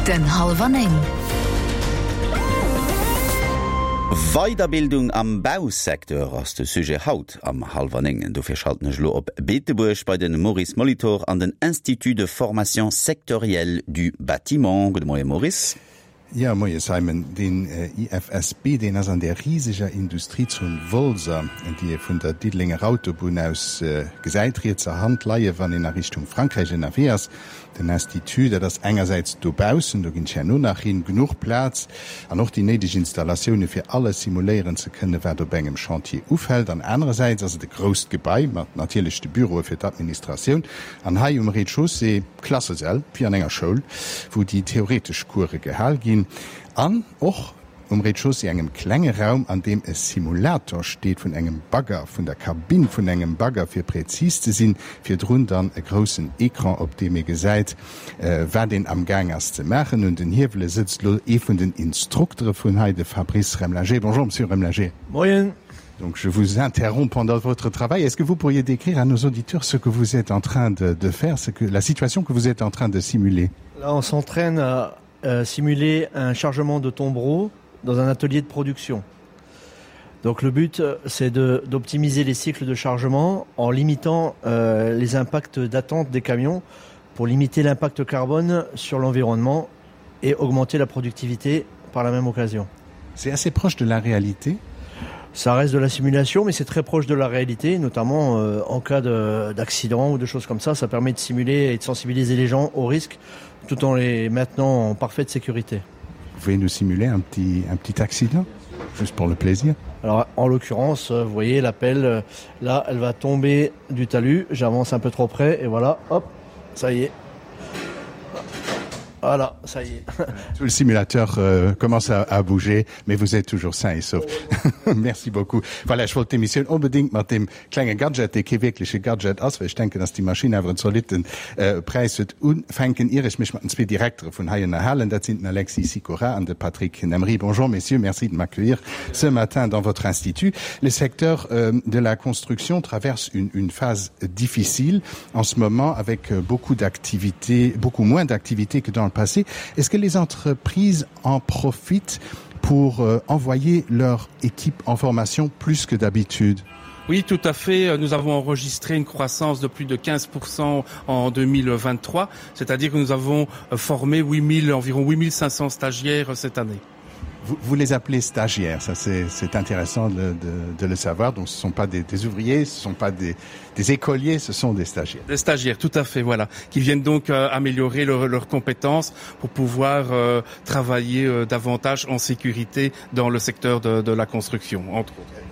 Den Hallwer 9. Weiderbildung am Bausecteur ass de Sujet haut am Hallwer 9. Dofir schalten ech elo op Beetebuerg bei de Maurice Molitor an den Institut de formation sectorielle du bâtiment. Gudde Moie Maurice. Jo, moie Simon. Den IFSB, deen ass an där riseger Industriezon Wolser, déi ee vun der Diddelenger Autobunn aus gesäit, rietser Hand leie wann een a Richtung Frankräich ënnerwee ass. Den Institut, dat ass engersäits dobaussen, do ginn ech herno nach hin, genuch Plaz an och déi néideg Installatioune fir alles simuléieren ze kënnen, wat op engem Chantier ufält. An anerersäits ass et e grousst Gebai mat natierlech de Büroe fir d'Administratioun an hei um Rez-de-chaussée, Klassesäll, wéi an enger Schoul, wou déi theoretesch Course gehal ginn, an och um Rez-de-chaussée engem klenge Raum, an deem e Simulator steet vun engem Bagger, vun der Kabinn vun engem Bagger, fir präzis ze sinn, virdrun dann e groussen Ecran, op deem ee gesäit, wat een am Gaang ass ze maachen. Un den Hiewele sëtzt elo ee vun den Instruktere vun hei, de Fabrice Remlinger. Bonjour, Monsieur Remlinger. Moien. Donc je vous interromps pendant votre travail. Est-ce que vous pourriez décrire à nos auditeurs ce que vous êtes en train de, de faire, ce que, la situation que vous êtes en train de simuler Là, on s'entraîne à euh, simuler un chargement de tombereau dans un atelier de production. Donc le but, c'est d'optimiser les cycles de chargement en limitant euh, les impacts d'attente des camions pour limiter l'impact carbone sur l'environnement et augmenter la productivité par la même occasion. C'est assez proche de la réalité Ça reste de la simulation, mais c'est très proche de la réalité, notamment euh, en cas d'accident ou de choses comme ça. Ça permet de simuler et de sensibiliser les gens aux risques tout en les maintenant en parfaite sécurité. Vous pouvez nous simuler un petit, un petit accident, juste pour le plaisir Alors en l'occurrence, euh, vous voyez l'appel, euh, là elle va tomber du talus, j'avance un peu trop près et voilà, hop, ça y est. Voilà, ça y est. Tout le simulateur euh, commence à, à bouger, mais vous êtes toujours sain et sauf. Merci beaucoup. Voilà, ech wollt d'Emissioun onbedéngt mat deem klenge Gadget, dee kee wierkleche Gadget ass, well ech denken, dass déi Maschinn awer en zolitten äh, Präis huet, ufänken, ier ech mech mat den zwee Direktere vun hei ënnerhalen. Dat sinn den Alexis Sykora an de Patrick Nemry. Bonjour messieurs, merci de m'accueillir ce matin dans votre institut. Le secteur euh, de la construction traverse une, une phase difficile en ce moment avec euh, beaucoup d'activités, beaucoup moins d'activités que dans le passé. Est-ce que les entreprises en profitent pour euh, envoyer leur équipe en formation plus que d'habitude? Oui, tout à fait. Nous avons enregistré une croissance de plus de 15% en 2023, c'est-à-dire que nous avons formé 8000, environ 8500 stagiaires cette année. Vous, vous les appelez stagiaires, ça c'est intéressant de, de, de le savoir. Donc ce ne sont pas des, des ouvriers, ce ne sont pas des, des écoliers, ce sont des stagiaires. Des stagiaires, tout à fait, voilà, qui viennent donc euh, améliorer leur, leurs compétences pour pouvoir euh, travailler euh, davantage en sécurité dans le secteur de, de la construction, entre autres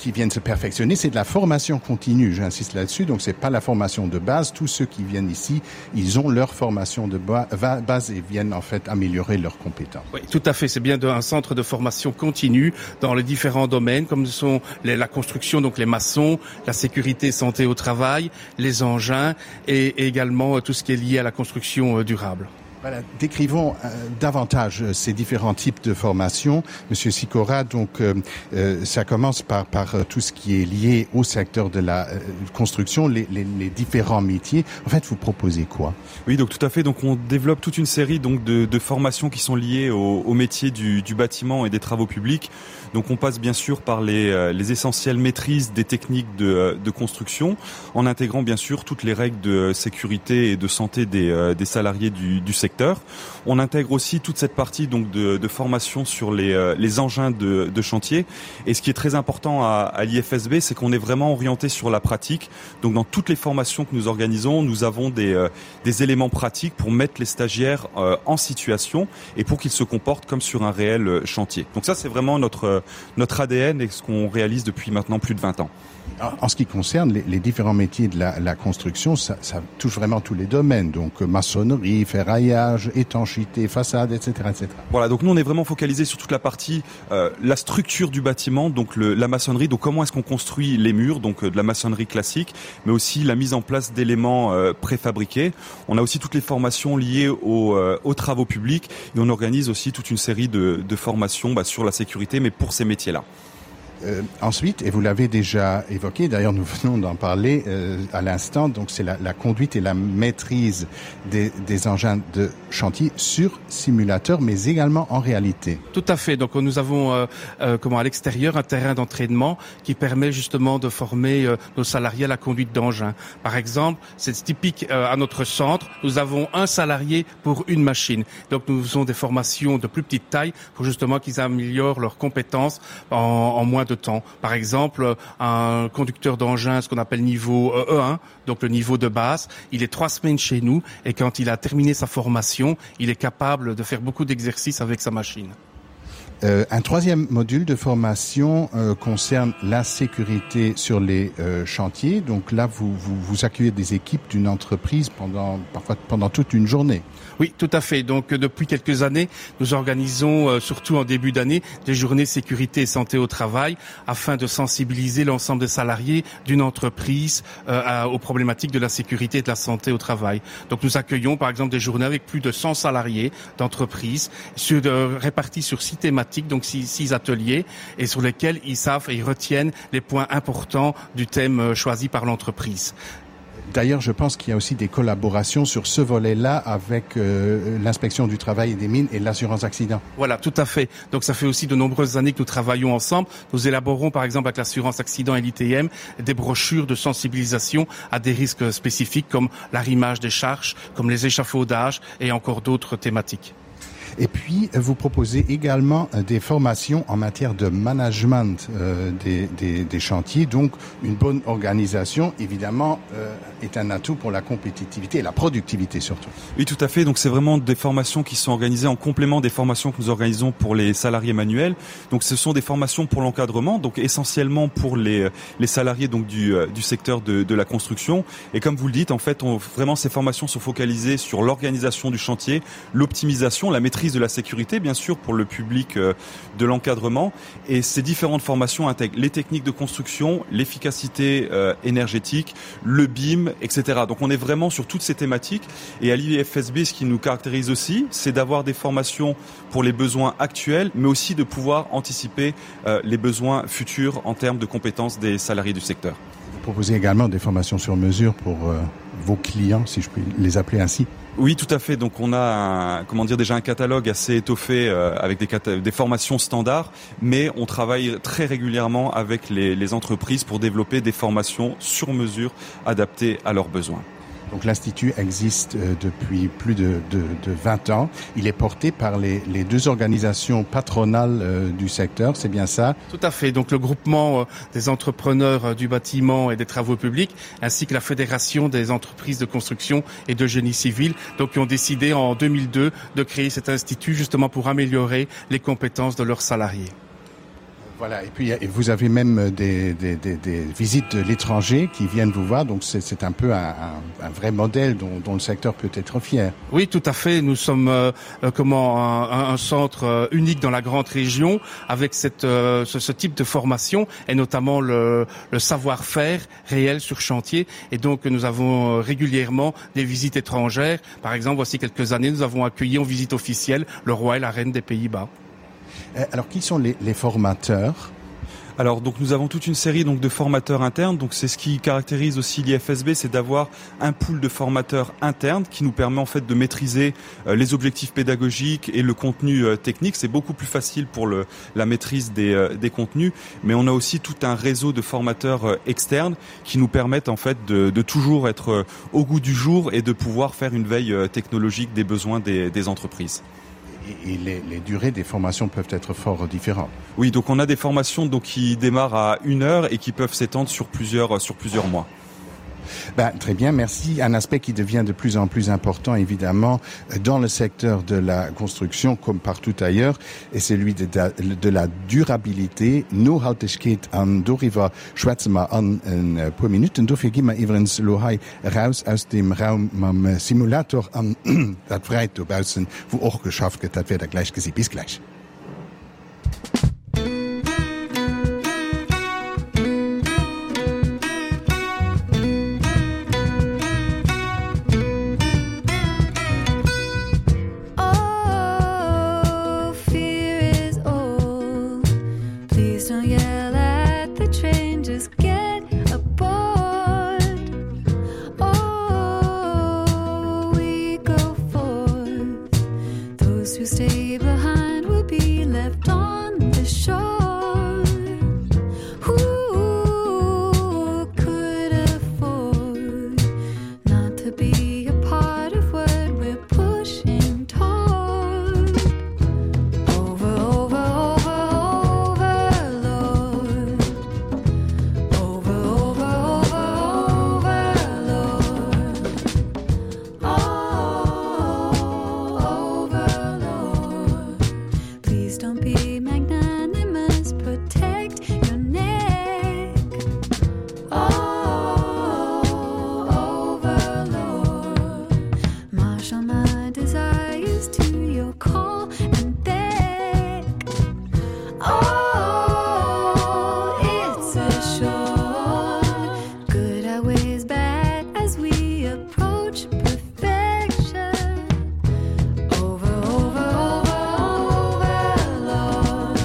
qui viennent se perfectionner, c'est de la formation continue, j'insiste là-dessus, donc c'est pas la formation de base. Tous ceux qui viennent ici, ils ont leur formation de base et viennent en fait améliorer leurs compétences. Oui, tout à fait, c'est bien un centre de formation continue dans les différents domaines comme sont les, la construction, donc les maçons, la sécurité santé au travail, les engins et, et également euh, tout ce qui est lié à la construction euh, durable. Voilà, décrivons euh, davantage euh, ces différents types de formations. Monsieur Sicora, donc euh, euh, ça commence par, par euh, tout ce qui est lié au secteur de la euh, construction, les, les, les différents métiers. En fait, vous proposez quoi Oui, donc tout à fait. Donc on développe toute une série donc, de, de formations qui sont liées au, au métier du, du bâtiment et des travaux publics. Donc on passe bien sûr par les, euh, les essentielles maîtrises des techniques de, euh, de construction, en intégrant bien sûr toutes les règles de sécurité et de santé des, euh, des salariés du, du secteur. On intègre aussi toute cette partie donc de, de formation sur les, les engins de, de chantier. Et ce qui est très important à, à l'IFSB, c'est qu'on est vraiment orienté sur la pratique. Donc dans toutes les formations que nous organisons, nous avons des, des éléments pratiques pour mettre les stagiaires en situation et pour qu'ils se comportent comme sur un réel chantier. Donc ça c'est vraiment notre, notre ADN et ce qu'on réalise depuis maintenant plus de 20 ans. En ce qui concerne les, les différents métiers de la, la construction, ça, ça touche vraiment tous les domaines, donc euh, maçonnerie, ferraillage, étanchéité, façade, etc., etc. Voilà, donc nous on est vraiment focalisé sur toute la partie euh, la structure du bâtiment, donc le, la maçonnerie, donc comment est-ce qu'on construit les murs, donc euh, de la maçonnerie classique, mais aussi la mise en place d'éléments euh, préfabriqués. On a aussi toutes les formations liées aux, euh, aux travaux publics et on organise aussi toute une série de, de formations bah, sur la sécurité, mais pour ces métiers-là. Euh, ensuite, et vous l'avez déjà évoqué, d'ailleurs nous venons d'en parler euh, à l'instant, donc c'est la, la conduite et la maîtrise des, des engins de chantier sur simulateur, mais également en réalité. Tout à fait. Donc nous avons euh, euh, comment à l'extérieur un terrain d'entraînement qui permet justement de former euh, nos salariés à la conduite d'engins. Par exemple, c'est typique euh, à notre centre, nous avons un salarié pour une machine. Donc nous faisons des formations de plus petite taille pour justement qu'ils améliorent leurs compétences en, en moins de temps. Par exemple, un conducteur d'engin, ce qu'on appelle niveau E1, euh, e donc le niveau de base, il est trois semaines chez nous et quand il a terminé sa formation, il est capable de faire beaucoup d'exercices avec sa machine. Euh, un troisième module de formation euh, concerne la sécurité sur les euh, chantiers. Donc là, vous, vous, vous accueillez des équipes d'une entreprise pendant, parfois pendant toute une journée. Oui, tout à fait. Donc euh, depuis quelques années, nous organisons, euh, surtout en début d'année, des journées sécurité et santé au travail afin de sensibiliser l'ensemble des salariés d'une entreprise euh, à, aux problématiques de la sécurité et de la santé au travail. Donc nous accueillons par exemple des journées avec plus de 100 salariés d'entreprises euh, répartis sur six thématiques, donc six, six ateliers et sur lesquels ils savent et ils retiennent les points importants du thème euh, choisi par l'entreprise. D'ailleurs, je pense qu'il y a aussi des collaborations sur ce volet-là avec euh, l'inspection du travail et des mines et l'assurance accident. Voilà, tout à fait. Donc ça fait aussi de nombreuses années que nous travaillons ensemble. Nous élaborons par exemple avec l'assurance accident et l'ITM des brochures de sensibilisation à des risques spécifiques comme l'arrimage des charges, comme les échafaudages et encore d'autres thématiques. Et puis, vous proposez également euh, des formations en matière de management euh, des, des, des chantiers. Donc, une bonne organisation, évidemment, euh, est un atout pour la compétitivité et la productivité surtout. Oui, tout à fait. Donc, c'est vraiment des formations qui sont organisées en complément des formations que nous organisons pour les salariés manuels. Donc, ce sont des formations pour l'encadrement, donc essentiellement pour les, les salariés donc, du, euh, du secteur de, de la construction. Et comme vous le dites, en fait, on, vraiment, ces formations sont focalisées sur l'organisation du chantier, l'optimisation, la maîtrise de la sécurité, bien sûr, pour le public euh, de l'encadrement. Et ces différentes formations intègrent les techniques de construction, l'efficacité euh, énergétique, le BIM, etc. Donc on est vraiment sur toutes ces thématiques. Et à l'IFSB, ce qui nous caractérise aussi, c'est d'avoir des formations pour les besoins actuels, mais aussi de pouvoir anticiper euh, les besoins futurs en termes de compétences des salariés du secteur. Vous proposez également des formations sur mesure pour euh, vos clients, si je puis les appeler ainsi. Oui, tout à fait. Donc on a un, comment dire déjà un catalogue assez étoffé euh, avec des, des formations standards, mais on travaille très régulièrement avec les, les entreprises pour développer des formations sur mesure adaptées à leurs besoins. Donc l'institut existe euh, depuis plus de, de, de 20 ans. Il est porté par les, les deux organisations patronales euh, du secteur, c'est bien ça Tout à fait. Donc le groupement euh, des entrepreneurs du bâtiment et des travaux publics ainsi que la fédération des entreprises de construction et de génie civil donc qui ont décidé en 2002 de créer cet institut justement pour améliorer les compétences de leurs salariés. Voilà, et puis et vous avez même euh, des, des, des, des visites de l'étranger qui viennent vous voir, donc c'est un peu un, un, un vrai modèle dont, dont le secteur peut être fier. Oui, tout à fait. Nous sommes euh, euh comment un, un centre euh, unique dans la grande région avec cette, euh, ce, ce type de formation et notamment le, le savoir-faire réel sur chantier. Et donc nous avons régulièrement des visites étrangères. Par exemple, voici quelques années, nous avons accueilli en visite officielle le roi et la reine des Pays-Bas. Euh, alors qui sont les, les formateurs Alors donc nous avons toute une série donc de formateurs internes donc c'est ce qui caractérise aussi l'IFSB c'est d'avoir un pool de formateurs internes qui nous permet en fait de maîtriser euh, les objectifs pédagogiques et le contenu euh, technique c'est beaucoup plus facile pour le la maîtrise des, euh, des contenus mais on a aussi tout un réseau de formateurs euh, externes qui nous permettent en fait de, de toujours être euh, au goût du jour et de pouvoir faire une veille euh, technologique des besoins des, des entreprises et les, les durées des formations peuvent être fort différentes. Oui, donc on a des formations donc, qui démarrent à une heure et qui peuvent s'étendre sur plusieurs, sur plusieurs mois. Ben, très bien, merci. Un aspect qui devient de plus en plus important, évidemment, dans le secteur de la construction, comme partout ailleurs, est celui de, de, de la durabilité. Nohaltegkeet an doriwwer schwätze mer an e puer Minuten. Dofir gi mer iwwerens elo hei eraus aus deem Raum mam Simulator an dat Fräit dobaussen, wou och geschafft gëtt. Dat wäert Der gläich gesi. Bis gläich. Oh, fear is old. Please don't yell at. Those who stay behind will be left on the shore. Who could afford not to be a part of what we're pushing toward? Over, over, over, over, Lord. Over, over, over, over, Lord. Oh, over, Lord. Please don't be magnanimous, protect your neck. Oh, over, Lord. Marshal my desires to your call and beg. Oh, it's assured. Good outweighs bad as we approach perfection. Over, over, over, over, Lord.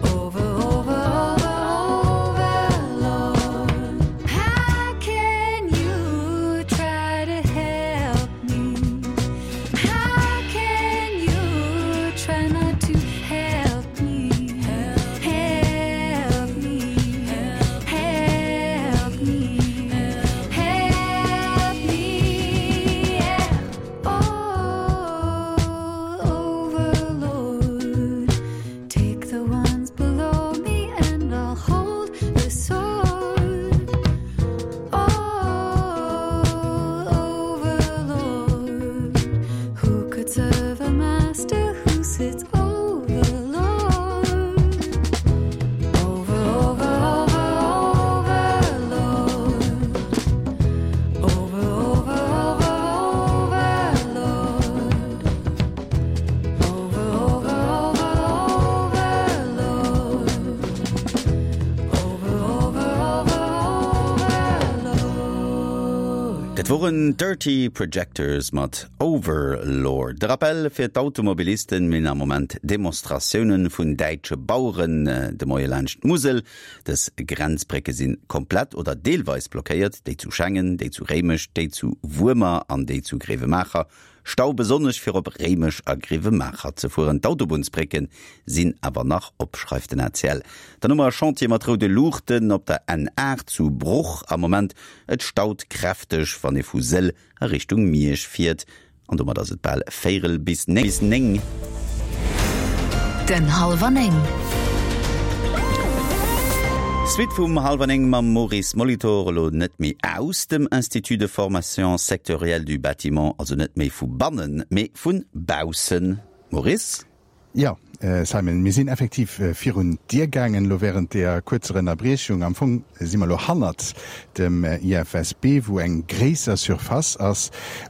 Over, over, over, over, Lord. How can you try to help me? How can you try not to help me? Help me, help me, help me, yeah. Oh, overlord, take the ones below me and I'll hold the sword. Oh, overlord, who could serve a master who sits overlord? Over, over, over, overlord. Over, over, over, overlord. Over, over, over, overlord. Over, over, over, overlord. Dat woren Dirty Projectors mat Overlord. De Rappel fir d'Automobilisten, Mir hunn am Moment Demonstratiounen vun däitsche Baueren de Moie laanscht d'Musel. Dës Grenzbrécke si komplett oder deelweis blockéiert, déi zu Schengen, déi zu Réimech, déi zu Wuermer an déi zu Gréiwemaacher. Stau besonnesch fir op Réimech a Gréiwemaacher ze fueren. D'Autobunnsbrécke sinn awer nach op, schreift den ACL. Dann hu mer e Chantier mat roude Luuchten op der N8 zu Bruch am Moment. Et staut kräfteg, wann ee vu Sëll a Richtung Miersch fiert. An domat ass et bal véirel bis 9. Den Hallwer 9. Suite vum Hallwer 9 mam Maurice Molitor, elo net méi aus dem Institut de formation sectorielle du bâtiment, also net méi vu bannen, mee vu baussen. Maurice? Jo, Simon, mir sinn effektiv virun d'Dier gaangen elo während deeër kuerzer Ënnerbriechung. Am Fong si mer elo hannert dem IFSB, wou eng gréisser Surface ass,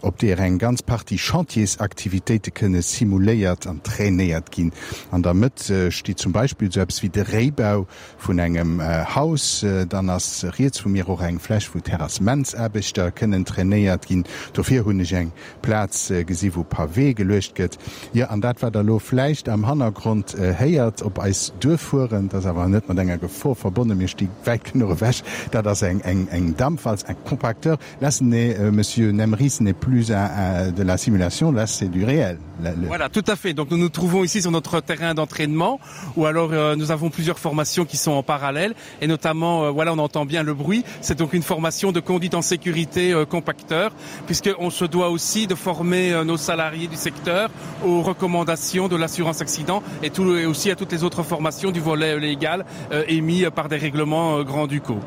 op deeër eng ganz Partie Chantiersaktivitéite kënne simuléiert an trainéiert ginn. An der Mëtt steet zum Beispill esou eppes wéi de Réibau vun engem Haus. Dann ass riets vu mir och eng Fläch, wou Terrassementsaarbechter kënnen trainéiert ginn. Dofir hunn ech eng Plaz gesi wou Pavé geluecht gëtt. Jo, an dat wat der elo vläicht am Hannergrond héiert op eis duerfueren, dat ass awer net mat enger Gefor verbonnen, mir sti wäit genuch ewech, dat ass eng eng Dampwalz, un compacteur. Là ce n'est, Monsieur Nemry, ce n'est plus un de la simulation, là c'est du réel. Voilà, tout à fait. Donc nous nous trouvons ici sur notre terrain d'entraînement ou alors euh, nous avons plusieurs formations qui sont en parallèle et notamment euh, voilà on entend bien le bruit c'est donc une formation de conduite en sécurité euh, compacteur puisque on se doit aussi de former euh, nos salariés du secteur aux recommandations de l'assurance accident et tout et aussi à toutes les autres formations du volet légal euh, émis par des règlements euh, grand ducaux.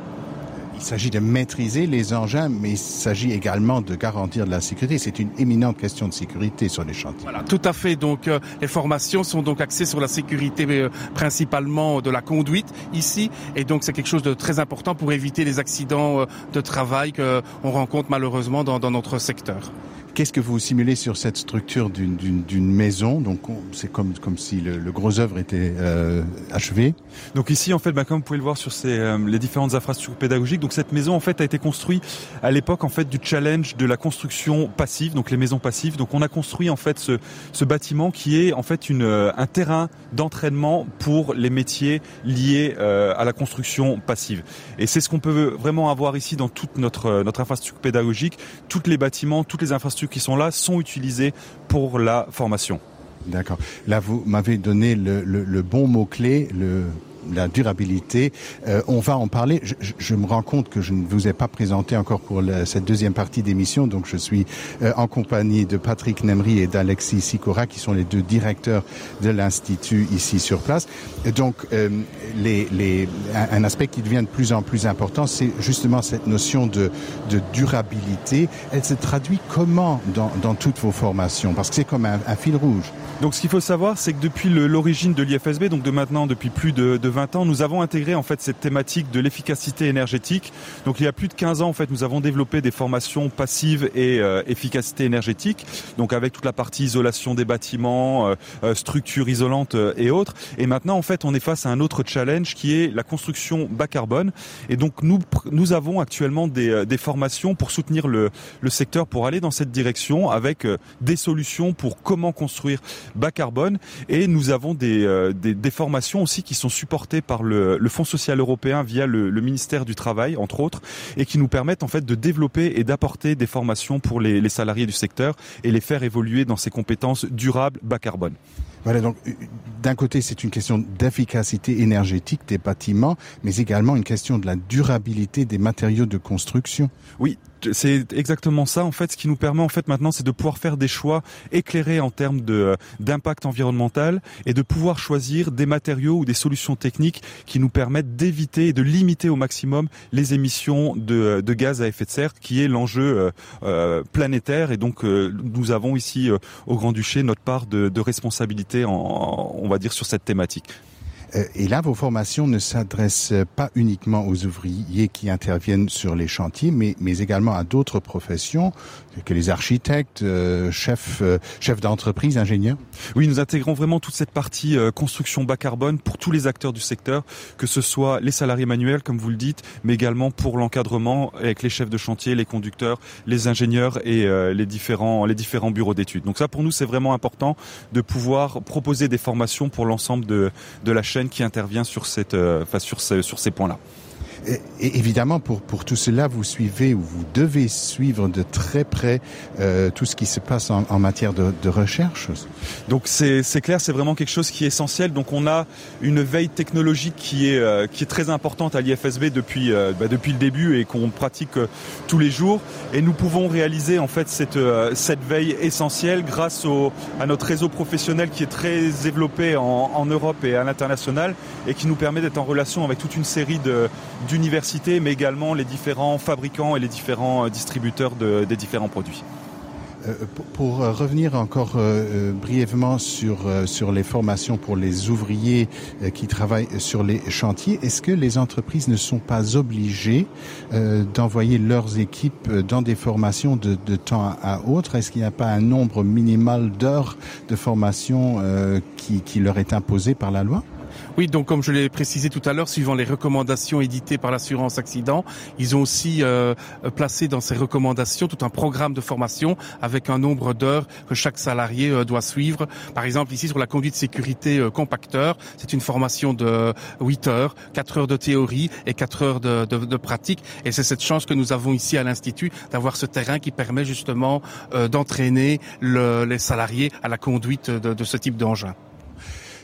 Il s'agit de maîtriser les engins, mais il s'agit également de garantir de la sécurité. C'est une éminente question de sécurité sur les chantiers. Voilà, tout à fait. Donc, euh, les formations sont donc axées sur la sécurité euh, principalement de la conduite ici. Et donc c'est quelque chose de très important pour éviter les accidents euh, de travail qu'on rencontre malheureusement dans, dans notre secteur. Qu'est-ce que vous simulez sur cette structure d'une maison donc c'est comme comme si le, le gros œuvre était euh, achevé donc ici en fait bah, comme vous pouvez le voir sur ces euh, les différentes infrastructures pédagogiques donc cette maison en fait a été construite à l'époque en fait du challenge de la construction passive donc les maisons passives donc on a construit en fait ce, ce bâtiment qui est en fait une euh, un terrain d'entraînement pour les métiers liés euh, à la construction passive et c'est ce qu'on peut vraiment avoir ici dans toute notre euh, notre infrastructure pédagogique toutes les bâtiments toutes les infrastructures. infrastructures qui sont là sont utilisées pour la formation. D'accord. Là vous m'avez donné le, le, le bon mot clé, le la durabilité. Euh, on va en parler. Je, je, je me rends compte que je ne vous ai pas présenté encore pour la, cette deuxième partie d'émission. Donc je suis euh, en compagnie de Patrick Nemry et d'Alexis Sicora qui sont les deux directeurs de l'institut ici sur place. Et donc euh, les, les, un, un aspect qui devient de plus en plus important, c'est justement cette notion de, de durabilité. Elle se traduit comment dans, dans toutes vos formations parce que c'est comme un, un fil rouge. Donc ce qu'il faut savoir, c'est que depuis l'origine de l'IFSB, donc de maintenant depuis plus de, de 20 ans, nous avons intégré en fait cette thématique de l'efficacité énergétique. Donc il y a plus de 15 ans en fait, nous avons développé des formations passives et euh, efficacité énergétique, donc avec toute la partie isolation des bâtiments, euh, euh structures isolantes euh, et autres. Et maintenant en fait, on est face à un autre challenge qui est la construction bas carbone. Et donc nous, nous avons actuellement des, euh, des formations pour soutenir le, le secteur pour aller dans cette direction avec des solutions pour comment construire bas carbone et nous avons des, euh, des, des formations aussi qui sont supportées par le, le Fonds social européen via le, le ministère du travail entre autres et qui nous permettent en fait de développer et d'apporter des formations pour les, les salariés du secteur et les faire évoluer dans ces compétences durables bas carbone. Voilà donc euh, d'un côté c'est une question d'efficacité énergétique des bâtiments mais également une question de la durabilité des matériaux de construction. Oui, c'est exactement ça en fait ce qui nous permet en fait maintenant c'est de pouvoir faire des choix éclairés en termes de euh, d'impact environnemental et de pouvoir choisir des matériaux ou des solutions techniques qui nous permettent d'éviter et de limiter au maximum les émissions de, euh, de gaz à effet de serre qui est l'enjeu euh, euh, planétaire et donc euh, nous avons ici euh, au grand duché notre part de, de responsabilité en, on va dire sur cette thématique. Euh, et là, vos formations ne s'adressent pas uniquement aux ouvriers qui interviennent sur les chantiers, mais, mais également à d'autres professions que les architectes, euh, chefs, euh, chefs d'entreprise, ingénieurs. Oui, nous intégrons vraiment toute cette partie euh, construction bas carbone pour tous les acteurs du secteur, que ce soit les salariés manuels, comme vous le dites, mais également pour l'encadrement avec les chefs de chantier, les conducteurs, les ingénieurs et euh, les différents, les différents bureaux d'études. Donc ça, pour nous, c'est vraiment important de pouvoir proposer des formations pour l'ensemble de, de la chaîne qui intervient sur, cette, euh, enfin, sur, ce, sur ces points-là. Et, et évidemment, pour, pour tout cela, vous suivez ou vous devez suivre de très près euh, tout ce qui se passe en, en matière de, de recherche. Donc c'est clair, c'est vraiment quelque chose qui est essentiel. Donc on a une veille technologique qui est, euh, qui est très importante à l'IFSB depuis, euh, bah, depuis le début et qu'on pratique euh, tous les jours. Et nous pouvons réaliser en fait cette, euh, cette veille essentielle grâce au, à notre réseau professionnel qui est très développé en, en Europe et à l'international et qui nous permet d'être en relation avec toute une série d'universités, mais également les différents fabricants et les différents euh, distributeurs de, des différents produits. Euh, pour euh, revenir encore euh, brièvement sur, sur les formations pour les ouvriers qui travaillent sur les chantiers, est-ce que les entreprises ne sont pas obligées d'envoyer leurs équipes dans des formations de, de temps à autre? Est-ce qu'il n'y a pas un nombre minimal d'heures de formation qui, qui leur est imposé par la loi? Oui, donc comme je l'ai précisé tout à l'heure, suivant les recommandations éditées par l'assurance accident, ils ont aussi euh, placé dans ces recommandations tout un programme de formation avec un nombre d'heures que chaque salarié euh, doit suivre. Par exemple, ici sur la conduite sécurité euh, compacteur, c'est une formation de 8 heures, 4 heures de théorie et 4 heures de, de, de pratique. Et c'est cette chance que nous avons ici à l'Institut d'avoir ce terrain qui permet justement euh, d'entraîner le, les salariés à la conduite de, de ce type d'engin.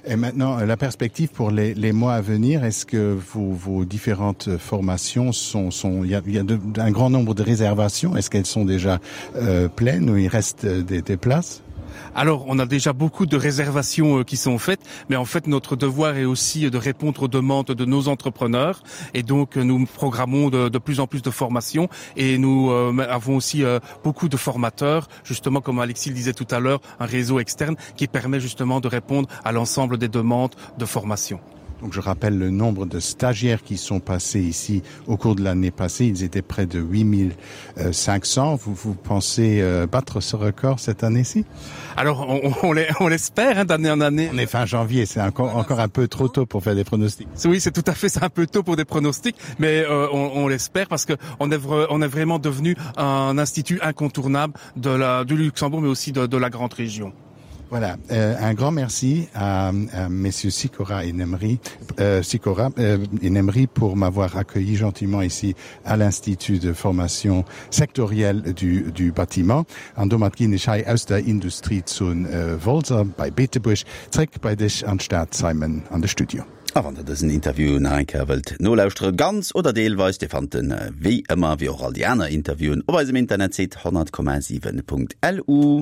Et maintenant, euh, la perspective pour les, les mois à venir, est-ce que vos, vos différentes formations sont, sont il y a, il y a de, un grand nombre de réservations, est-ce qu'elles sont déjà euh, pleines ou il reste euh, des, des places? Alors on a déjà beaucoup de réservations euh, qui sont faites, mais en fait notre devoir est aussi de répondre aux demandes de nos entrepreneurs et donc nous programmons de, de plus en plus de formations et nous euh, avons aussi euh, beaucoup de formateurs, justement comme Alexis le disait tout à l'heure, un réseau externe qui permet justement de répondre à l'ensemble des demandes de formation. Donc je rappelle le nombre de stagiaires qui sont passés ici au cours de l'année passée, ils étaient près de 8500. Vous, vous pensez euh, battre ce record cette année-ci Alors on, on l'espère d'année en année. On est fin janvier, c'est encore, encore un peu trop tôt pour faire des pronostics. Oui, c'est tout à fait un peu tôt pour des pronostics, mais euh, on, on l'espère parce qu'on est, on est vraiment devenu un institut incontournable de la, du Luxembourg mais aussi de, de la grande région. Voilà, euh, un grand merci à, à messieurs Sikora et Nemri, euh, Sikora euh, et Nemri pour m'avoir accueilli gentiment ici à l'Institut de formation sectorielle du, du bâtiment. An domat ginn ech hei aus der Industriezon äh, Wolser bei Beetebuerg zréck bei dech an d'Stad, Simon, an de Studio. A wann der dësen Interview nach eng Kéier wëllt nolauschtere, ganz oder deelweis, Dir fannt en wéi ëmmer, wéi och all déi aner Interviewen, op eisem Internetsite 100,7.lu.